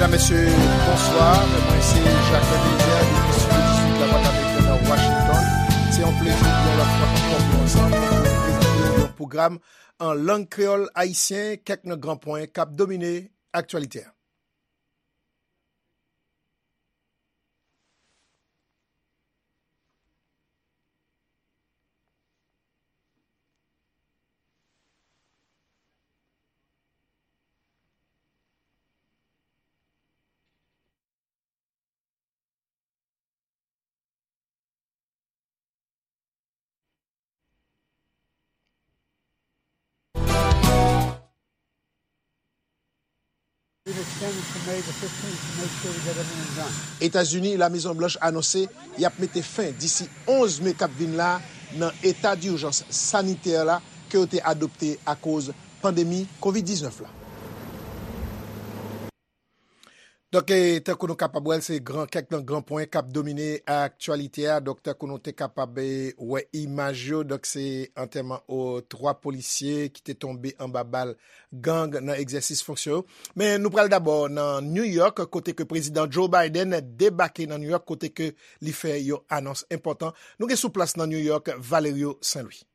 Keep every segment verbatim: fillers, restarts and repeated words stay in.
Mesye, bonswa. Mwen se Jacques Eliezer depi Studio dizuit Lavwadlamerik nan Washington. Se yon plezi pou yon lòt fwa ankò pou nou ansanm pou prezante yon pwogram an lang kreyòl ayisyen, kèk nan gran pwen k ap domine aktyalite a. Etazini, La Mezon Blanch anonse y ap mete fen disi onz me k ap vin la nan eta dijans sanitè la ke yo te adopte akoz pandemi kovid diznèf la. Donk, e, tankou nou kapab wè l, se gran, kèk nan gran pwen k ap domine aktyalite a. Donk, tankou nou te kapab, e, wè imaj yo, donk, se antèman o twa polisye ki te tonbe anba bal gang nan egzèsis fonksyon yo. Men nou pral dabò nan New York, kote ke prezidan Joe Biden debake nan New York, kote ke li fè yon anons enpòtan. Nou gen sou plas nan New York, Valerio Saint Louis.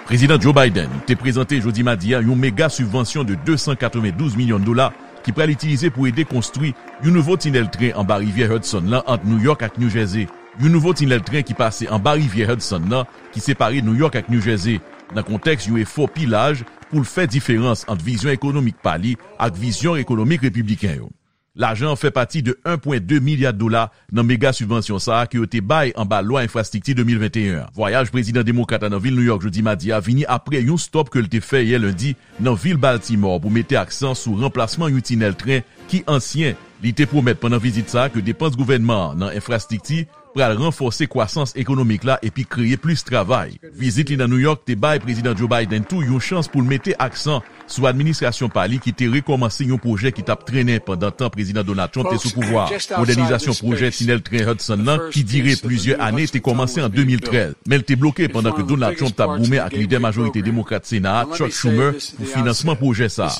Prezidan Joe Biden te prezante jodi madi a yon mega sibvansyon de de san katrevendouz milyon dola ki pral itilize pou ede konstwi yon nouvo tinèl tren anba rivyè Hudson nan ant New York ak New Jersey. Yon nouvo tinèl tren ki pase anba rivyè Hudson nan, ki separe New York ak New Jersey, nan kontèks yon efò pi laj pou l fè diferans ant vizyon ekonomik pa li ak vizyon ekonomik repibliken yo. Lajan an fè pati de en pwen de milya dola nan mega sibvansyon sa a ke yo te bay anba lwa enfrastrikti de mil venteyen an. Vwayaj prezidan demokrat la nan vil New York jodi madi a vini apre yon stòp ke l te fè yè lendi nan vil Baltimore pou mete aksan sou ranplasman yon tinèl tren ki ansyen. Li te pwomèt pandan vizit sa a ke depans gouvènman an nan enfrastrikti pral ranfòse kwasans ekonomik la epi kreye plis travay. Vizit li nan New York te bay prezidan Joe Biden tou yon chans pou l mete aksan sou administrasyon pa li ki te rekòmanse yon pwojè ki t ap trennen pandan tan prezidan Donald Trump te sou pouvwa a, modènizasyon pwojè tinèl tren Hudson nan ki dire plizyè ane te kòmanse an de mil trèz, men l te bloke pandan ke Donald Trump t ap goumen ak lidè majorite demokrat Sena a, Chuck Schumer, pou finansman pwojè sa a.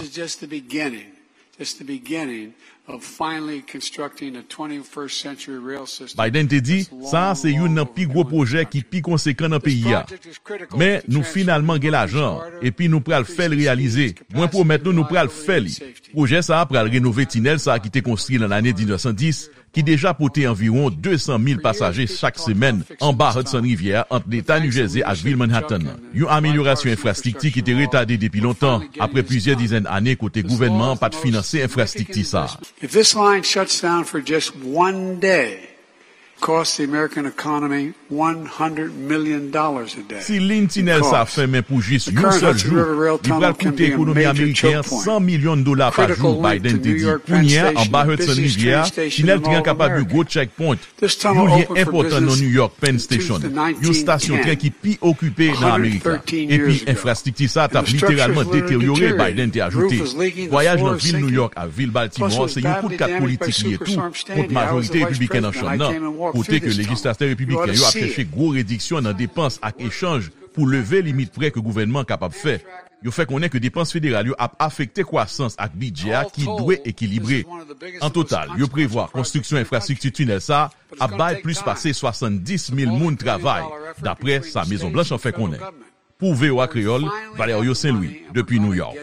It's the beginning of finally constructing a twenty-first century rail system. Biden te di, sa a se youn nan pi gwo pwojè ki pi konsekan nan peyi a. Men, nou finalman gen lajan an, epi nou pral fè l reyalize. Mwen pwomèt nou, nou pral fè li. Pwojè sa a pral renove tinèl sa a ki te konstwi nan lane diznèf san dis, ki deja pote anviwon de san mil pasaje chak semèn anba Hudson Rivyè a ant Leta New Jersey ak vil Manhattan nan. Yon amelyorasyon enfrastrikti ki te retade depi lontan, apre plizyè dizèn ane kote gouvènman an pa t finanse enfrastrikti sa a. If this line shuts down for just one day, cost the American economy one hundred million dollars a day. Si liy tinèl sa a fèmen pou jis yon sèl jou, li pral koute ekonomi ameriken an san milyon dola pa jou, Biden te di. Kounye a, anba Hudson Rivyè a, tinèl tren an kapab yon gwo checkpoint, yon lyen enpòtan nan New York Penn Station, yon stasyon tren ki pi okipe nan Amerik la. Epi enfrastrikti sa a t ap literalman deteryore, Biden te ajoute. Vwayaj nan vil New York ak vil Baltimore se yon kout kat politik li ye tou kont majorite repibliken nan chanm nan, kote ke lejislatè repibliken yo ap chèche gwo rediksyon nan depans ak echanj pou leve limit prè ke gouvènman an kapab fè. Yo fè konnen ke depans federal yo ap afekte kwasans ak bidjè a ki dwe ekilibre. An total, yo prevwa konstriksyon enfrastrikti tinèl sa a ap bay plis pase swasanndis mil moun travay, dapre sa Mezon Blanch an fè konnen. Pou V O A Kreyòl, Valerio Saint Louis, depi New York.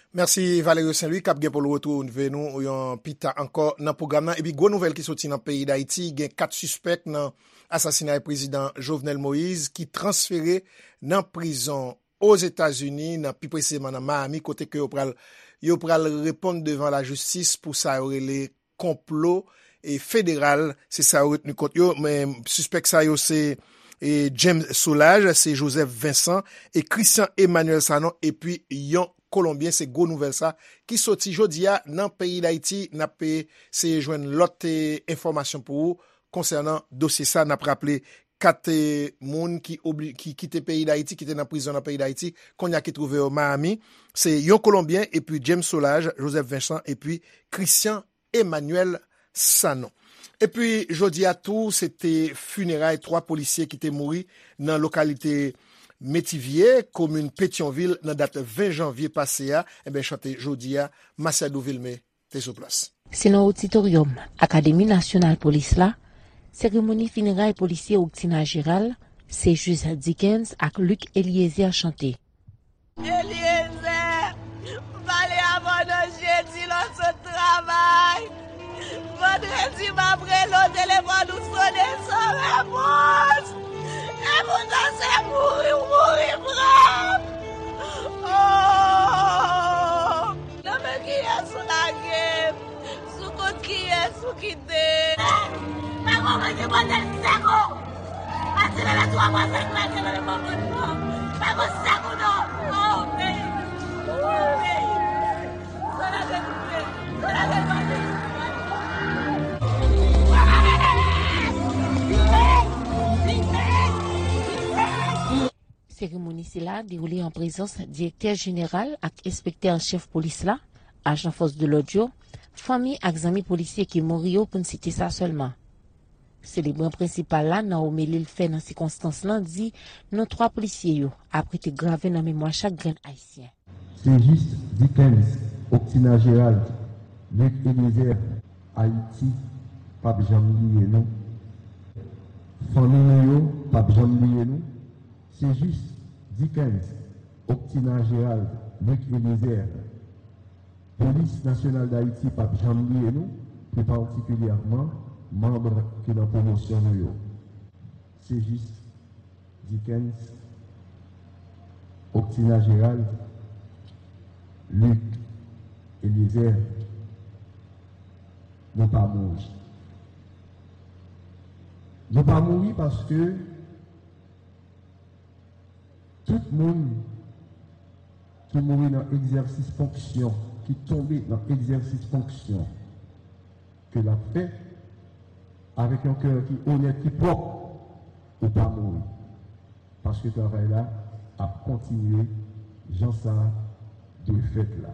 Mèsi Valerio Saint Louis k ap gen pou l retwouve nou yon pita ankò nan pwogram nan. Epi gwo nouvèl ki soti nan peyi Dayiti, gen kat sispèk nan asasinay prezidan Jovenel Moïse ki transfere nan prizon Ozetazini, nan pi presizeman nan Miami, kote ke yo pral, yo pral reponn devan lajistis pou sa yo rele konplo e federal, se sa yo retni kont yo. Men sispèk sa yo se, e, James Solages, se Joseph Vincent e Christian Emmanuel Sanon, epi yon Kolonbyen. Se gwo nouvèl sa ki soti jodi a nan peyi Dayiti. N ap, e, seye jwenn lòt, e, enfòmasyon pou ou konsènan dosye sa. N ap raple kat, e, moun ki obli-, ki kite peyi Dayiti, ki te nan prizon nan peyi Dayiti, kounye a ki twouve yo Miami. Se yon Kolonbyen, epi James Solages, Joseph Vincent, epi Christian Emmanuel Sanon. Epi jodi a tou, se te fineray twa polisye ki te mouri nan lokalite Metivye, komin Petyonvil, nan dat ven janvye pase a, enben, chante jodi a, Masiadou Vilmé te sou plas. Se nan oditoryòm Akademi Nasyonal Polis la, seremoni fineray polisye Octina Gérald, Céjus Dickens ak Luc Eliezer chante. Eliezer, m pale avè w nan jedi lè w sot travay. Vandredi, m ap rele w, telefòn ou sonnen san repons. E poutan se mouri w mouri pran. Oh! Nan men kiyès ou lage m? Sou kont kiyès ou kite? Pa gon mwen ki pote sèk ou. Pati bebe twa mwa fèk mwen te bebe mwen konn non. Pa gon sèk ou non. Oh, peyi. Oh, peyi. Sa la te koupe. Sa la te koupe. Seremoni sila dewoule an prezans direktè jeneral ak enspektè an chèf polis la, ajan fòs de lòd yo, fanmi ak zanmi polisye ki mouri yo, pou n site sa sèlman. Selebran prensipal la, nan omeli l fè nan sikonstans lan, di non twa polisye yo ap rete grave nan memwa chak grenn Ayisyen. Céjus Dickens, Octina Gérald, Luc Eliezer, Ayiti p ap janm bliye nou. Fanmi nou yo p ap janm bliye nou. Céjus Dickens, Octina Gérald, Luc Eliezer, Polis Nasyonal Dayiti p ap janm bliye nou, pli patikilyèman manm ki nan pwomosyon nou yo. Céjus Dickens, Octina Gérald, Luc Eliezer, nou pa mouri. Nou pa mouri paske tout moun ki mouri nan egzèsis fonksyon, ki tonbe nan egzèsis fonksyon ke l ap fè, avèk yon kè ki onèt, ki pwòp, ou pa mouri. Paske travay la ap kontinye jan sa dwe fèt la.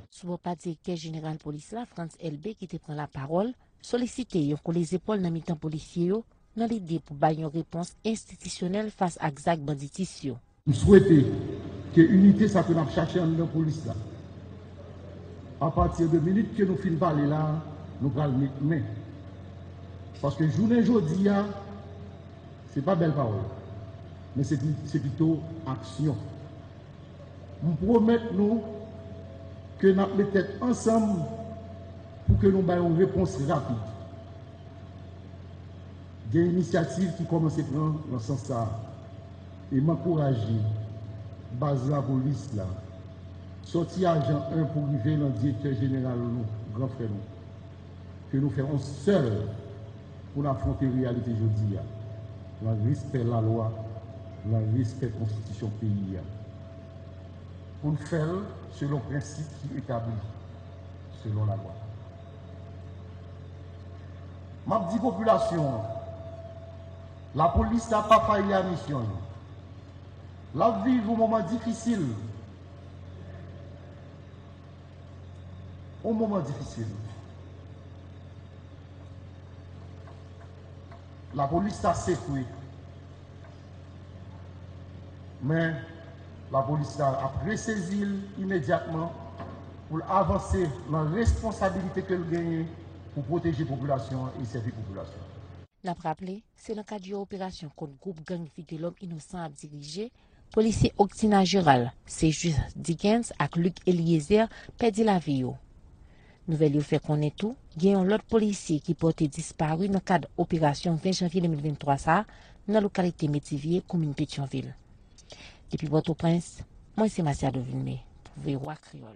Sou bò pa direktè jeneral polis la, Frantz Elbé, ki te pran lapawòl, solisite yon kole zepòl nan mitan polisye yo, nan lide pou bay yon repons enstitisyonèl fas ak zak banditis yo. M swete ke inite sa ke n ap chache anndan polis la, apati de minit ke nou fin pale la, nou pral met men. Paske jounen jodi a, se pa bèl pawòl, men se pi-, se pito aksyon. M pwomèt nou ke n ap met tèt ansanm pou ke nou bay yon repons rapid. Gen inisyativ ki kòmanse pran nan sans sa a, e m ankouraje baz lapolis la, sòti ajan en pou rive nan direktè jeneral nou, gran frè nou, ke nou fè yon sèl pou n afwonte reyalite jodi a, nan respè lalwa, nan respè konstitisyon peyi a. Pou n fè l selon prensip ki etabli selon lalwa. M ap di popilasyon an, lapolis la pa fayi a misyon l. L ap viv yon moman difisil. Yon moman difisil. Lapolis la sekwe. Men, lapolis la ap resezi l imedyatman pou l avanse nan responsabilite ke l genyen pou pwoteje popilasyon an e sèvi popilasyon an. N ap raple, se nan kad yon operasyon kont gwoup gang Vitelòm Inosan ap dirije, polisye Octina Gérald, Céjus Dickens ak Luc Eliezer pèdi lavi yo. Nouvèl yo fè konnen tou, gen yon lòt polisye ki pòte dispari nan kad operasyon ven janvye de mil venntwa sa a, nan lokalite Metivye, komin Petyonvil. Depi Pòtoprens, mwen se Masiado Vilmé pou V O A Kreyòl.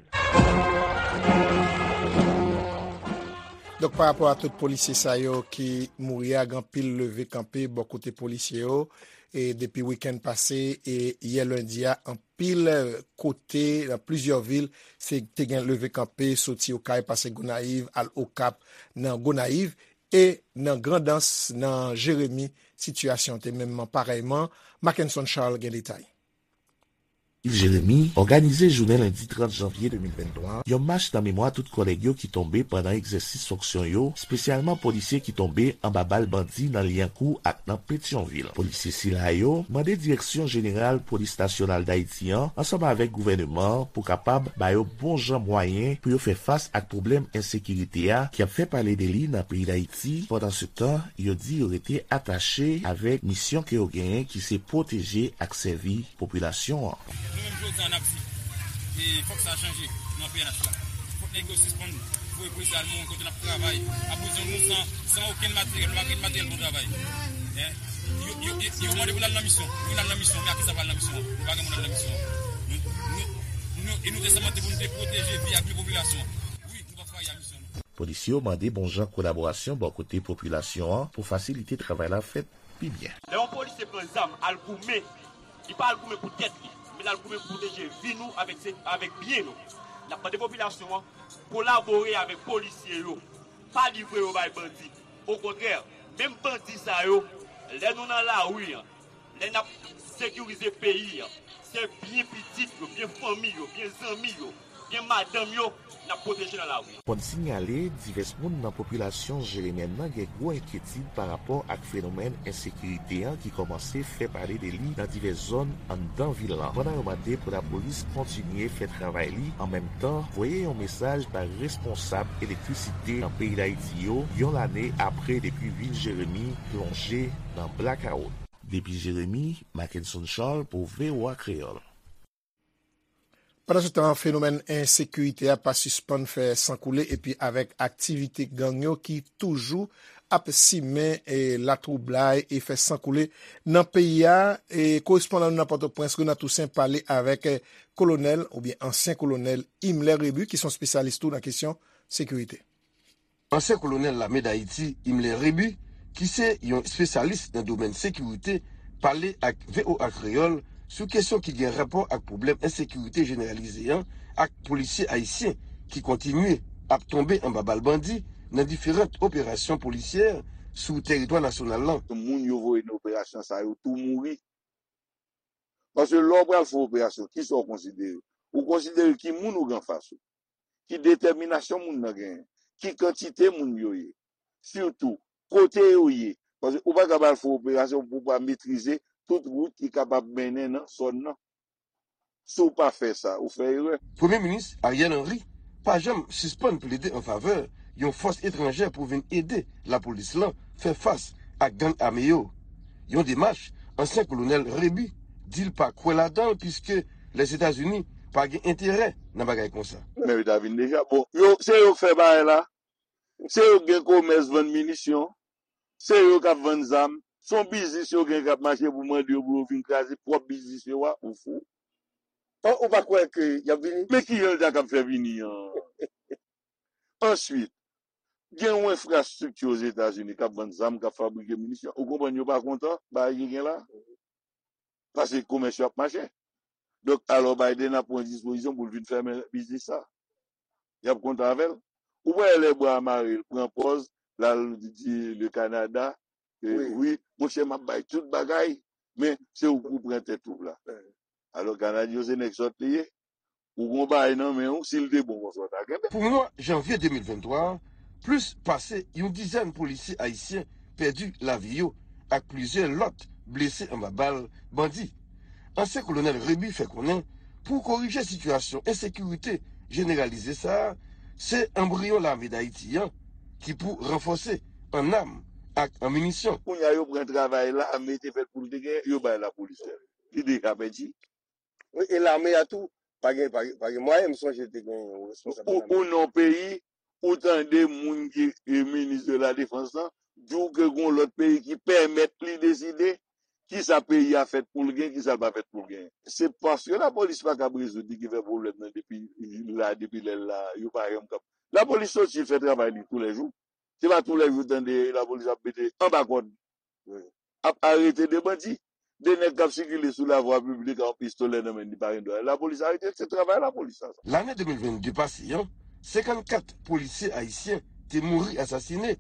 Donk, pa rapò a tout polisye sa yo ki mouri a, gen anpil leve kanpe bò kote polisye yo, e depi wikenn pase, e yè lendi a, anpil kote, nan plizyè vil, se te gen leve kanpe, soti Okay, pase Gonayiv, al Okap, nan Gonayiv, e nan Grandans, nan Jeremi, sitiyasyon te menm parèyman. Mackenson Charles gen detay. Yves Jérémy òganize jounen lendi trant janvye de mil venntwa yon mach nan memwa tout kòlèg yo ki tonbe pandan egzèsis fonksyon yo, espesyalman polisye ki tonbe anba bal bandi nan Lyankou ak nan Petyonvil. Polisye sila yo mande Direksyon Jeneral Polis Nasyonal Dayiti an, ansanm avèk gouvèneman an, pou kapab ba yo bon jan mwayen pou yo fè fas ak pwoblèm ensekirite a ki ap fè pale de li nan peyi Dayiti. Pandansetan, yo di yo rete atache avèk misyon ke yo genyen, ki se pwoteje ak sèvi popilasyon an. Nou menm jodi a n ap di, e, fòk sa chanje nan P N H la. Fòk nèg yo sispann voye polisye al mouri kote n ap travay, ap prizon nou san, san okenn materyèl, nou pa gen materyèl pou n travay. Hein? Yo, yo, yo, yo mande pou n al nan misyon. Wi, n al nan misyon, men a kisa pou al nan misyon an? Nou pa gen moun al nan misyon an. Nou, nou, nou, e nou te sèmante pou nou te pwoteje vi ak byen popilasyon an. Wi, nou p ap trayi a misyon nou. Polisye yo mande bon jan kolaborasyon bò kote popilasyon an pou fasilite travay la fèt pi byen. Lè yon polisye pran zam al goumen, li pa al goumen pou tèt li, men l al goumen pou pwoteje vi nou avèk se, avèk byen nou. N ap mande popilasyon an kolabore avèk polisye yo, pa livre yo bay bandi. Okontrè, menm bandi sa yo, lè nou nan lari an, lè n ap sekirize peyi an, se byen pitit yo, byen fanmi yo, byen zanmi yo, byen madanm yo, n ap pwoteje nan lari an. Fò n sinyale, divès moun nan popilasyon jeremyèn nan gen gwo enkyetid parapò ak fenomèn ensekirite an ki kòmanse fè pale de li nan divès zòn anndan vil lan, pandan yo mande pou lapolis kontinye fè travay li, an menm tan, voye yon mesaj bay responsab elektrisite nan peyi Dayiti yo, yon lane apre depi vil Jeremi plonje nan blakawout. Depi Jeremi, Mackenson Charles pou V O A Kreyòl. Pandansetan, fenomèn ensekirite a pa sispann fè san koule, epi avèk aktivite gang yo ki toujou ap simen, e, latwoublay e fè san koule nan peyi a, e, korespondan nou nan Pòtoprens, Renan Toussaint, pale avèk, e, kolonèl oubyen ansyen kolonèl Himmler Rébu, ki se yon espesyalis tou nan kesyon sekirite. Ansyen kolonèl lame Dayiti, Himmler Rébu, ki se yon espesyalis nan domèn sekirite, pale ak V O A Kreyòl sou kesyon ki gen rapò ak pwoblèm ensekirite jeneralize an ak polisye ayisyen ki kontinye ap tonbe anba bal bandi nan diferan operasyon polisyè sou teritwa nasyonal lan. Moun yo voye nan operasyon sa yo tou mouri. Paske lè w pral fè yon operasyon, kisa w konsidere? Ou konsidere ki moun ou gen anfas ou, ki detèminasyon moun nan genyen, ki kantite moun yo ye, sitou kote yo ye. Paske ou pa kapab al fè yon operasyon pou w pa metrize tout wout ki kapab mennen nan zòn nan. Si w pa fè sa, ou fè erè. Premye Minis Ariel Henry pa janm sispann plede an favè yon fòs etranjè pou vin ede lapolis lan fè fas ak gang ame yo. Yon demach ansyen kolonèl Rébu di l pa kwè ladan l, piske Lèzetazini pa gen enterè nan bagay konsa. Men yo ta vin deja. Bon, yo, se yo k fè bagay la. Se yo k gen komès vann minisyon. Se yo k ap vann zam. Se yon biznis yo gen k ap mache pou mande yo pou yo vin kraze pwòp biznis yo a. Ou fou. An, ou pa kwè ke y ap vini? Men kijan l ta kab fè vini an? Answit, gen yon enfrastrikti Ozetazini k ap vann zam, k ap fabrike minisyon. Ou konprann yo pa kontan bagay ki gen la? Paske komès yo ap mache. Donk, alò Biden ap pran dispozisyon pou l vin fèmen biznis sa. Y ap kontan avè l. Ou pa wè lè bwa a mare, l pran pòz, l al di le Canada, e, wi, wi, monchè, m ap bay tout bagay, men se ou k pou pran tèt twoup la. Alò, Kanadyen yo se nèg sòt li ye. Ou gon bagay nan men w, si l te bon konsa, w ta kenbe. Pou mwa janvye de mil venntwa a, plis pase yon dizèn polisye ayisyen pèdi lavi yo ak plizyè lòt blese anba bal bandi. Ansyen kolonèl Rébu fè konnen pou korije sitiyasyon ensekirite jeneralize sa a, se anbriyon lame Dayiti an ki pou ranfòse an nam ak an minisyon. Kounye a, yo pran travay lame te fèt pou l te genyen, yo bay lapolis fè l. Li deja pèdi. Wi, e lame a tou, pa gen, pa gen, pa gen mwayen, m sonje te gen yon responsab nan lame. Ou, ou nan yon peyi, ou tande moun ki, e, minis de la defans lan, di w ke gon lòt peyi ki pèmèt li deside kisa peyi a fèt pou l gen, kisa l pa fèt pou l gen. Se paske lapolis pa kab rezoud li ki fè pwoblèm nan depi la, depi lè l la, yo pa janm kab. Lapolis soti fè travay li toulèjou. Se pa toulèjou w tande lapolis ap mete anba kòd, ap arete de bandi. De nèg k ap sikile sou lavwa piblik ak yon pistolè nan men li pa gen dwa. Lapolis arete l, se travay lapolis sa. Lane de mil vennde pase an, senkannkat polisye ayisyen te mouri asasinen.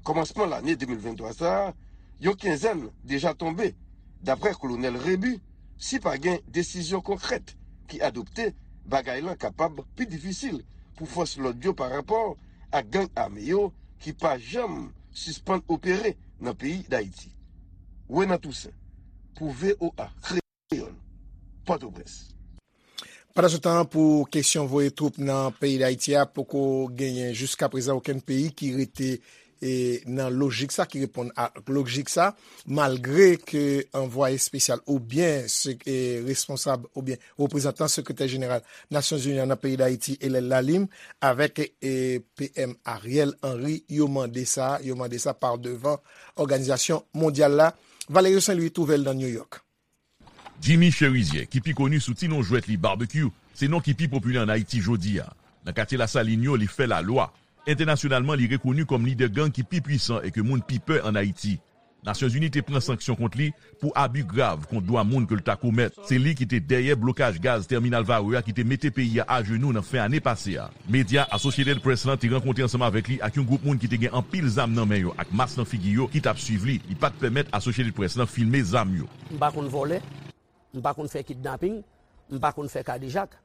Kòmansman lane de mil venntwa sa a, yon kenzèn deja tonbe. Daprè kolonèl Rébu, si pa gen desizyon konkrèt ki adopte, bagay lan kapab pi difisil pou fòs lòd yo parapò ak gang ame yo ki pa janm sispann opere nan peyi Dayiti. Renan Toussaint, pou V O A Kreyòl, Pòtoprens. Pandansetan, pou kesyon voye twoup nan peyi Dayiti a, poko genyen jiskaprezan okenn peyi ki rete e nan lojik sa, ki reponn a lojik sa, malgre ke anvwaye espesyal oubyen se, e, responsab oubyen reprezantan sekretè jeneral Nasyonzini an nan peyi Dayiti, Hélène Lalim, avèk, e, P M Ariel Henry, yo mande sa, yo mande sa pa devan òganizasyon mondyal la. Valerio Saint Louis twouve l nan New York. Jimmy Chérizier, ki pi koni sou ti non jwèt li Barbecue, se non ki pi popilè ann Ayiti jodi a. Nan katye Lasalin yo, li fè lalwa. Entènasyonalman, li rekoni kòm lidè gang ki pi pwisan e ke moun pi pè ann Ayiti. Nasyonzini te pran sanksyon kont li pou abi grav kont dwa moun ke l ta komèt. Se li ki te dèyè blokaj gaz tèminal Varreux a ki te mete peyi a ajenou nan fen ane pase a. Medya Associated Press lan te rankontre ansanm avèk li ak yon gwoup moun ki te gen anpil zam nan men yo ak mas nan figi yo ki t ap swiv li. Li pa t pèmèt Associated Press lan filme zam yo. M pa konn vòlè, m pa konn fè kidnaping, m pa konn fè kadejak.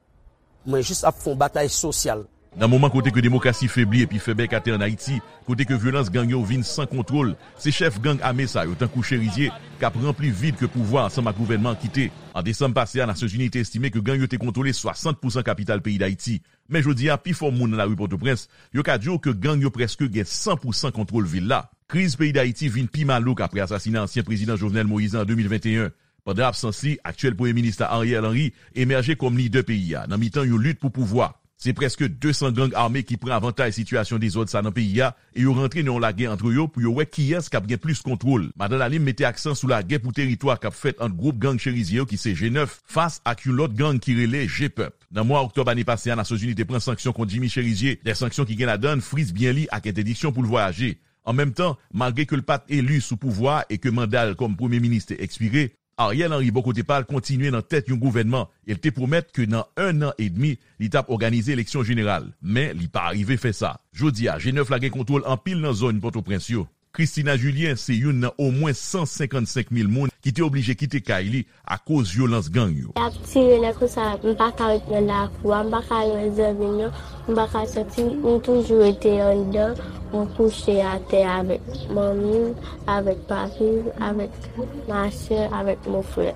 Mwen jis ap fè yon batay sosyal. Nan moman kote ke demokrasi febli epi fè bèk atè ann Ayiti, kote ke vyolans gang yo vin san kontwòl, se chèf gang ame sa yo, tankou Chérizier, k ap ranpli vid ke pouvwa ansanm ak gouvènman an kite. An desanm pase a, Nasyonzini te estime ke gang yo te kontwole swasant pousan kapital peyi Dayiti. Men jodi a, pifò moun nan lari Pòtoprens, yo ka di w ke gang yo prèske gen san pousan kontwòl vil la. Kriz peyi Dayiti vin pi malouk apre asasina ansyen prezidan Jovenel Moïse an de mil venteyen. Pandan absans li, aktyèl premye minis la Ariel Henry emèje kòm lidè peyi a nan mitan yon lit pou pouvwa. Se prèske de san gang ame ki pran avantaj sitiyasyon dezòd sa nan peyi a e yo rantre nan yon lagè ant yo pou yo wè kiyès k ap gen plis kontwòl. Madan Lalim mete aksan sou lagè pou teritwa k ap fèt ant gwoup gang Chérizier yo ki se G nèf fas ak yon lòt gang ki rele G pèp. Nan mwa oktòb ane pase a, Nasyonzini te pran sanksyon kont Jimmy Chérizier, de sanksyon ki gen ladan l friz byen li ak entèdiksyon pou l vwayaje. An menm tan, malgre ke l pa t eli sou pouvwa a e ke manda l kòm premye minis te ekspire, Ariel Henry bò kote pa l kontinye nan tèt yon gouvènman e l te pwomèt ke nan en an edmi, li t ap òganize eleksyon jeneral. Men, li pa rive fè sa. Jodi a, G nèf la gen kontwòl anpil nan zòn Pòtoprens yo. Christina Julien se youn nan omwen san senkannsenk mil moun ki te oblije kite kay li akoz vyolans gang yo. Y ap tire lè konsa, m pa ka ret nan lakou a, m pa ka al wè zanmi m yo, m pa ka sòti, m toujou rete anndan, m kouche atè avèk manmi m, avèk papi m, avèk masè, avèk mon frè.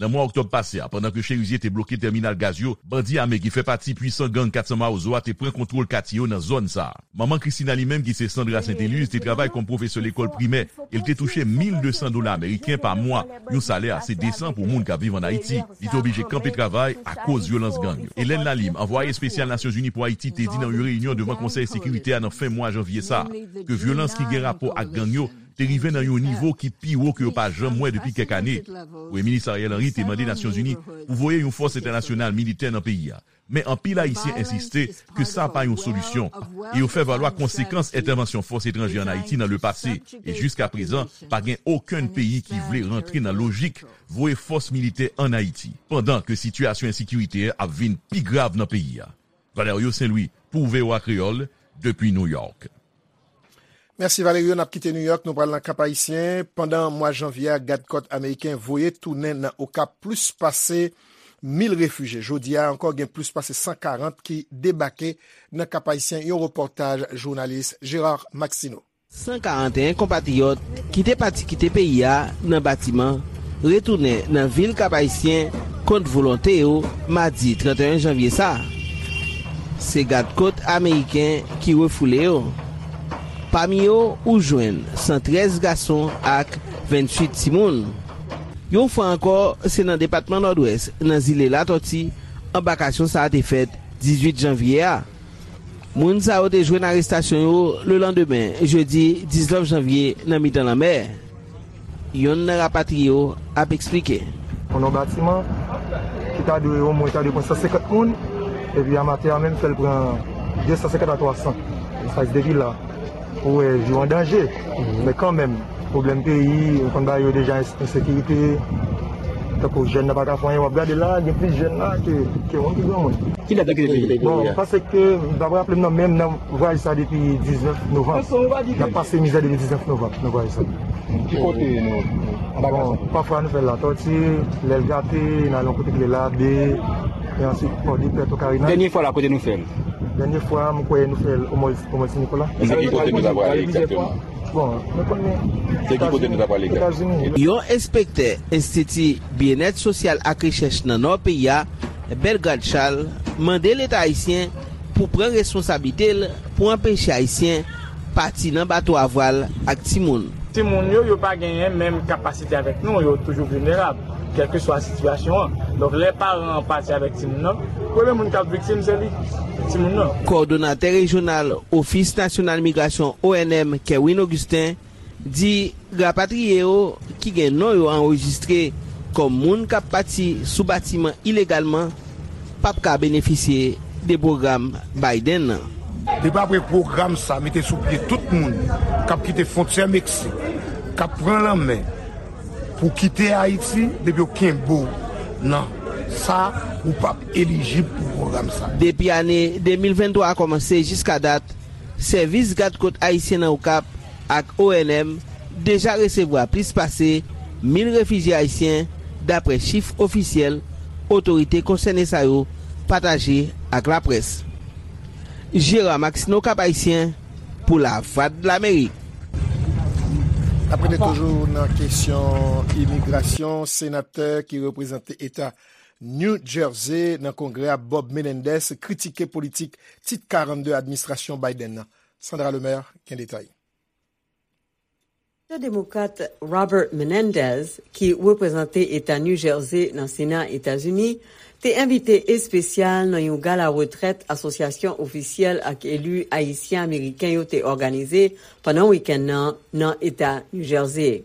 Nan mwa oktòb pase a, pandan ke Cherizier te bloke tèminal gaz yo, bandi ame ki fè pati pwisan gang kat san Mawozo a te pran kontwòl katye yo nan zòn sa a. Manman Christina li menm ki se Sandra Saint-Éluse te travay kòm pwofesè lekòl primè e l te touche mil de san dola ameriken pa mwa, yon salè ase desan pou moun k ap viv ann Ayiti. Li te oblije kanpe travay akoz vyolans gang yo. Hélène Lalim, anvwaye espesyal Nasyonzini pou Ayiti, te di nan yon reyinyon devan Konsèy Sekirite a nan fen mwa janvye sa a, ke vyolans ki gen rapò ak gang yo te rive nan yon nivo ki pi wo ke yo pa janm wè depi kèk ane. Premye Minis Ariel Henry te mande Nasyonzini pou voye yon fòs entènasyonal militè nan peyi a. Men anpil Ayisyen ensiste ke sa pa yon solisyon e yo fè valwa konsekans entèvansyon fòs etranje ann Ayiti nan lepase, e jiskaprezan, pa gen okenn peyi ki vle rantre nan lojik voye fòs militè ann Ayiti, pandan ke sitiyasyon ensekirite ap vin pi grav nan peyi a. Valerio Saint Louis, pou V O A Kreyòl, depi New York. Mèsi Valerio, n ap kite New York, nou pral nan Kap Ayisyen. Pandan mwa janvye a, gadkòt ameriken voye tounen nan Okap plis pase mil refijye. Jodi a ankò, gen plis pase san karant ki debake nan Kap Ayisyen, yon repòtaj jounalis Gérard Maxineau. San karanteyen konpatriyòt ki te pati kite peyi a nan batiman retounen nan vil Kap Ayisyen kont volonte yo madi trannteyen janvye sa a. Se gadkòt ameriken ki refoule yo. Pami yo, ou jwenn san trèz gason ak venntuit timoun. Yon fwa ankò, se nan depatman Nòdwès, nan zile Latòti, anbakasyon sa a te fèt dizuit janvye a. Moun sa yo te jwenn arestasyon yo lelandemen, jedi diznèf janvye, nan mitan lanmè. Youn nan rapatriye yo ap eksplike. Nan yon batiman ki ta dwe omwen ta dwe pran san senkant moun, epi a maten an menm fè l pran de san senkant a twa san. Sa se depi la. Ou wè vi w an danje. Men kanmenm, pwoblèm peyi, ou konn bagay yo deja, ensekirite, tankou jèn nan pa ka fè anyen, w ap gade la, gen plis jèn la ke, ke moun ki granmoun. Ki dat ou kite peyi? Bon, m panse ke, m pa raple m nan, men m nan vwayaj sa depi diznèf novanm. N ap pase mizè depi diznèf novanm nan vwayaj sa. Ki kote nou? Bon, pafwa nou fè l Latòti, lè l gate, n al yon kote ki rele Labe, E answit, Pòdepè, Tokarina. Dènye fwa la, kote nou fè l? Dènye fwa, m kwè nou fè l o Mòn Ti Nikola. Se ki kote nou ta prale egzakteman? Bon, nou konnen. Se ki kote nou ta prale egzakteman? Etazini. Yon enspektè Enstiti Byennèt Sosyal ak Rechèch nan Nò peyi a, Bellegarde Charles, mande Leta ayisyen pou pran responsablite l pou anpeche Ayisyen pati nan bato a vwal ak timoun. Timoun yo, yo pa genyen menm kapasite avèk nou, yo toujou vilnerab, kèlkeswa sitiyasyon an. Donk, lè paran an pati avèk timoun nan, premye moun k ap viktim, se li, timoun nan. Kòdonatè rejyonal Ofis Nasyonal Migrasyon, O N M, Kerwin Augustin, di rapatriye yo ki gen non yo anrejistre kòm moun k ap pati sou batiman ilegalman p ap ka benefisye de pwogram Biden nan. Depi apre pwogram sa mete sou pye tout moun k ap kite fwontyè Meksik, k ap pran lanmè pou kite Ayiti, depi yo kenbe w nan sa, ou p ap elijib pou pwogram sa. Depi ane de mil venntwa a kòmanse jiska dat, sèvis gad kot ayisyen nan Okap ak O N M deja resevwa plis pase mil refijye ayisyen, dapre chif ofisyèl otorite konsène sa yo pataje ak laprès. Gérard Maxineau, Cap-Haïtien, pou Lavwadlamerik. N ap rete toujou nan kesyon imigrasyon. Senatè ki reprezante eta New Jersey nan Kongrè a, Bob Menendez, kritike politik Tit karannde administrasyon Biden nan. Sandra Lemaire gen detay. Senatè demokrat Robert Menendez, ki reprezante eta New Jersey nan Sena Etazini, te envite espesyal nan yon gala retrèt Asosyasyon Ofisyèl ak Eli Ayisyen Ameriken yo te òganize pandan wikenn nan nan eta New Jersey.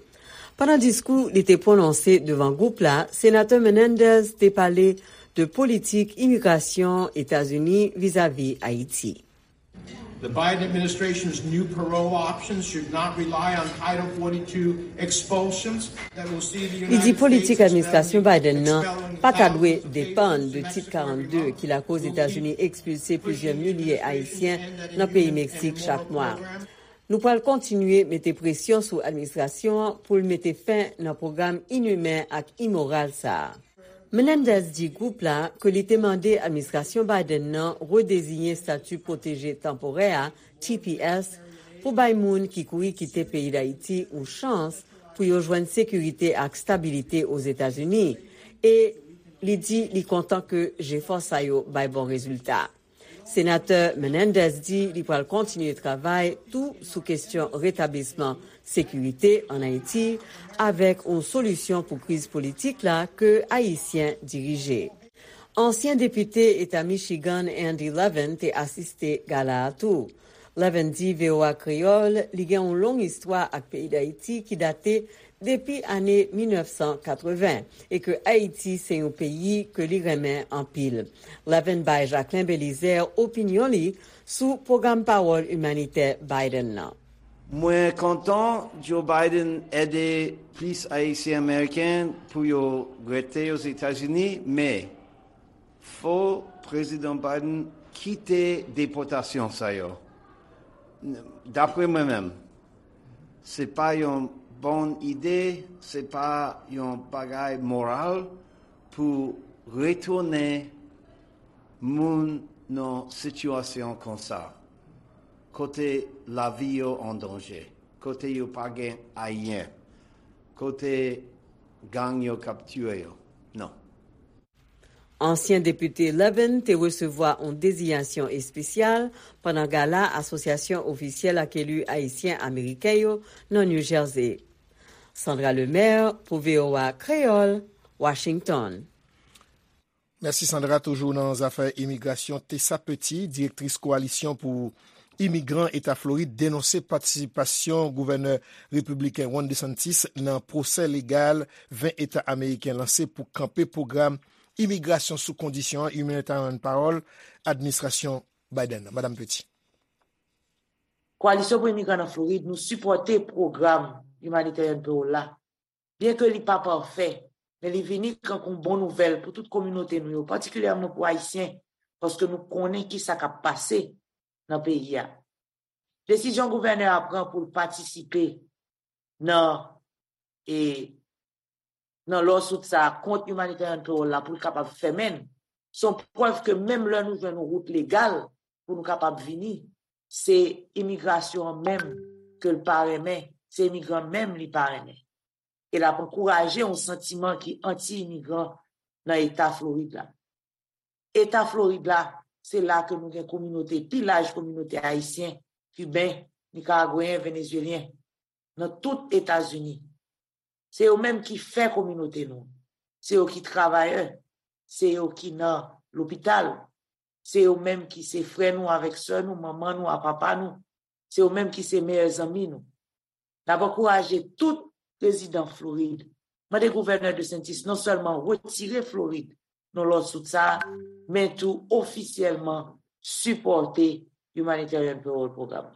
Pandan diskou li te pwononse devan gwoup la, Senatè Menendez te pale de politik imigrasyon Etazini vizavi Ayiti. The Biden administration's new parole options should not rely on Title forty-two expulsions that will see the Li di United politik States administrasyon expelling, Biden nan expelling pa ta dwe thousands of depann de Tit karannde ki lakoz Etazini ekspilse plizyè milye Ayisyen nan peyi Meksik chak mwa. Nou pral kontinye mete presyon sou administrasyon an pou l mete fen nan pwogram inimen ak imoral sa a. Menendez di gwoup la ke li te mande administrasyon Biden nan redeziyen Stati Pwoteje Tanporè a, T P S, pou bay moun ki kouri kite peyi Dayiti yon chans pou yo jwenn sekirite ak stabilite Ozetazini, e li di li kontan ke jefò sa yo bay bon rezilta. Senatè Menendez di li pral kontinye travay tou sou kesyon retablisman sekirite ann Ayiti avèk yon solisyon pou kriz politik la ke Ayisyen dirije. Ansyen depite eta Michigan Andy Levin te asiste gala a tou. Levin di V O A Kreyòl li gen yon long istwa ak peyi Dayiti ki date depi ane mil nèf san katreven e ke Ayiti se yon peyi ke li renmen anpil. Levin bay Jacquelin Belizaire opinyon li sou pwogram pawòl imanitè Biden nan. Mwen kontan Joe Biden ede plis Ayisyen Ameriken pou yo rete Ozetazini, men fò Prezidan Biden kite depòtasyon sa yo. Dapre mwen menm, se pa yon bon ide, se pa yon bagay moral pou retounen moun nan sitiyasyon konsa, kote lavi yo an danje, kote yo pa gen ayen, kote gang yo k ap tiye yo. Non. Ansyen depite Levin te resevwa yon dezinyasyon espesyal pandan gala Asosyasyon Ofisyèl ak Eli Ayisyen Ameriken yo nan New Jersey. Sandra Lemaire pou V O A Kreyòl, Washington. Mèsi Sandra. Toujou nan zafè imigrasyon, Tessa Petit, direktris Kowalisyon pou Imigran eta Florid, denonse patisipasyon gouvènè repibliken Ron DeSantis nan pwosè legal ven eta ameriken lanse pou kanpe pwogram imigrasyon sou kondisyon Humanitarian Parole administrasyon Biden nan. Madam Petit. Koalisyon pou Imigran nan Florid, nou sipòte pwogram Humanitarian Parole la. Byenke li pa pafè, men li vini tankou yon bon nouvèl pou tout kominote nou yo, patikilyèman pou Ayisyen, paske nou konnen ki sa k ap pase nan peyi a. Desizyon gouvènè a pran pou l patisipe nan, e, nan lawsuit sa a kont Humanitarian Parole la pou l kapab fèmen l, Se yon prèv ke menm lè nou jwenn yon wout legal pou nou kapab vini, se imigrasyon an menm ke l pa renmen, se imigran menm li pa renmen. E l ap ankouraje yon santiman ki anti-imigran nan eta Florid la. Eta Florid la, se la ke nou gen kominote, pi laj kominote ayisyen, kiben, nikaragweyen, venezuelyen, nan tout Etazini. Se yo menm ki fè kominote nou. Se yo ki travayè. Se yo ki nan lopital. Se yo menm ki se frè nou avèk sè nou, manman nou a papa nou. Se yo menm ki se meyè zanmi nou. N ap ankouraje tout rezidan Florid, mande gouvènè DeSantis non sèlman retire Florid nan lòd sou sa, men tou ofisyèlman sipòte Humanitarian Parole Program.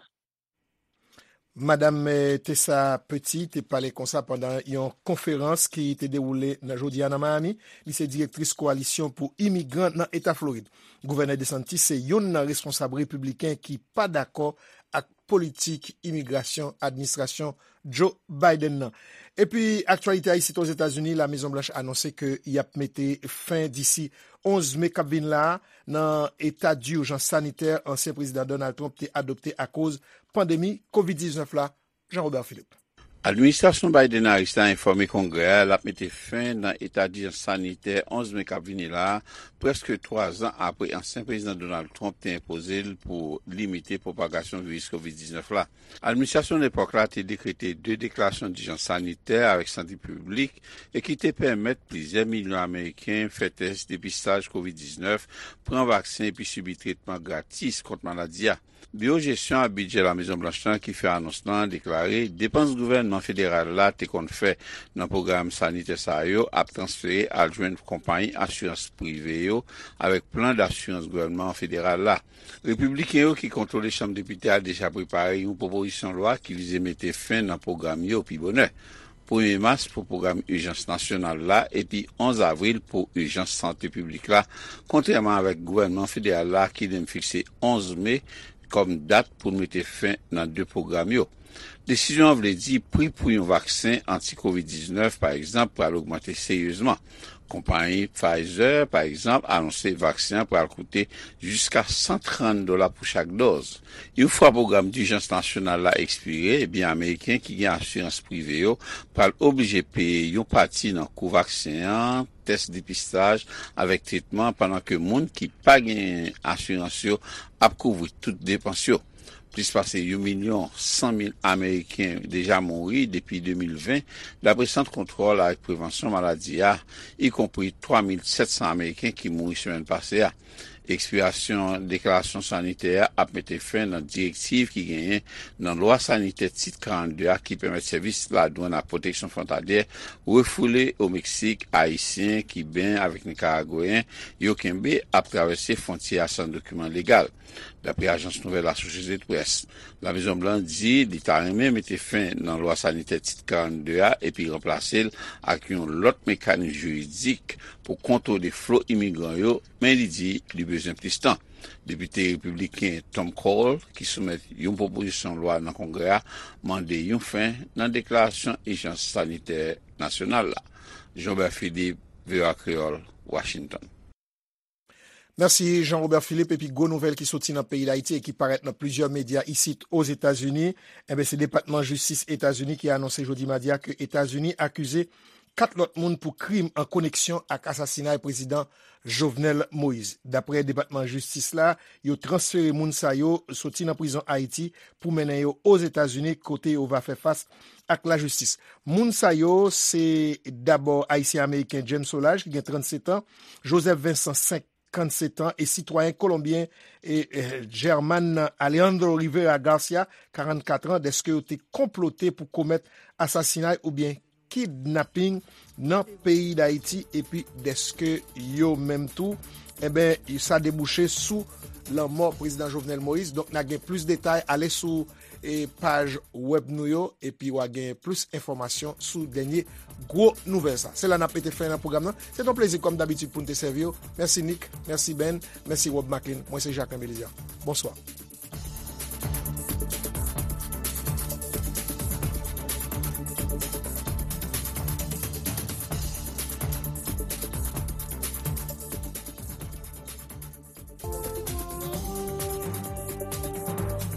Madam eh, Tessa Petit te pale konsa pandan yon konferans ki te dewoule nan jodi a nan Miami. Li se direktris Kowalisyon pou Imigran nan Eta Florid. Gouvènè DeSantis se youn nan responsab repibliken ki pa dakò ak politik imigrasyon administrasyon Joe Biden nan. Epi aktyalite a isit Ozetazini, Lamezon Blanch anonse ke y ap mete fen disi onz me k ap vin la a nan eta dijans sanitè ansyen prezidan Donald Trump te adopte akoz pandemi kovid diznèf la. Jean Robert Philippe. Administrasyon Biden-Harris la enfòme Kongrè a l ap mete fen nan eta dijans sanitè onz me k ap vini la a, prèske twa zan apre ansyen prezidan Donald Trump te enpoze l pou limite pwopagasyon viris kovid diznèf la. Administrasyon lepòk la te dekrete de deklarasyon dijans sanitè avèk sante piblik e ki te pèmèt plizyè milyon Ameriken fè tès depistaj kovid diznèf, pran vaksen epi sibi tretman gratis kont maladi a. Biwo Jesyon ak Bidjè Lamezon Blanch lan ki fè anons lan deklare depans gouvènman federal la te konn fè nan pwogram sanitè sa yo ap transfere al jwenn konpayi asirans prive yo avèk plan dasirans gouvènman federal la. Repibliken yo ki kontwole Chanm Depite a deja prepare yon pwopozisyon lwa ki vize mete fen nan pwogram yo pi bonè. Premye mas pou pwogram ijans nasyonal la epi onz avril pou ijans sante piblik la, kontrèman avèk gouvènman federal la ki li menm fikse onz me kòm dat pou l mete fen nan de pwogram yo. Desizyon an vle di pri pou yon vaksen anti kovid diznèf, pa egzanp, pral ogmante seryezman. Konpayi Pfizer, pa egzanp, anonse vaksen an pral koute jiska san trant dola pou chak dòz. Yon fwa pwogram dijans nasyonal la ekspire, ebyen Ameriken ki gen asirans prive yo pral oblije peye yon pati nan kou vaksen an, tès depistaj avèk tretman, pandan ke moun ki pa gen asirans yo ap kouvri tout depans yo. Plis pase yon milyon san mil Ameriken deja mouri depi de mil ven, dapre Sant Kontwòl ak Prevansyon Maladi a, ikonpri twa mil sèt san Ameriken ki mouri semèn pase a. Ekspirasyon deklarasyon sanitè a ap mete fen nan direktiv ki genyen nan Lwa Sanitè Tit karannde a ki pèmèt sèvis ladwàn ak pwoteksyon fwontalyè refoule o Meksik Ayisyen, Kiben avèk Nikaragweyen yo kenbe ap travèse fwontyè a san dokiman legal. Dapre ajans nouvèl Associated Press, Lamezon Blan di li ta renmen mete fen nan lwa sanitè Tit karannde a epi ranplase l ak yon lòt mekanis jiridik pou kontwole flo imigran yo, men li di li bezwen plis tan. Depite repibliken Tom Cole, ki soumèt yon pwopozisyon lwa nan Kongrè a, mande yon fen nan deklarasyon ijans sanitè nasyonal la. Jean Robert Philippe, V O A Kreyòl, Washington. Mèsi Jean Robert Philippe. Epi gwo nouvèl ki soti nan peyi Dayiti e ki parèt nan plizyè medya isit Ozetazini, enben se Depatman Jistis Etazini ki anonse jodi madi a ke Etazini akize kat lòt moun pou krim an koneksyon ak asasinay Prezidan Jovenel Moïse. Daprè Depatman Jistis la, yo transfere moun sa yo soti nan prizon Ayiti pou mennen yo Ozetazini kote yo va fè fas ak lajistis. Moun sa yo se dabò Ayisyen Ameriken James Solages ki gen trannsetan, Joseph Vincent senkannsèt an e sitwayen kolonbyen e German Alejandro Rivera Garcia karannkat an dèske yo te konplote pou komèt asasinay oubyen kidnaping nan peyi Dayiti epi dèske yo menm tou enben sa debouche sou lanmò Prezidan Jovenel Moïse. Donk n a gen plis detay ale sou e paj wèb nou yo epi w a gen plis enfòmasyon sou dènye gwo nouvèl sa. Se la n ap mete fen nan pwogram nan. Se t on plezi kòm dabitid pou n te sèvi w. Mèsi Nick, mèsi Ben, mèsi Rob Macklin. Mwen se Jacques Melizia. Bonswa.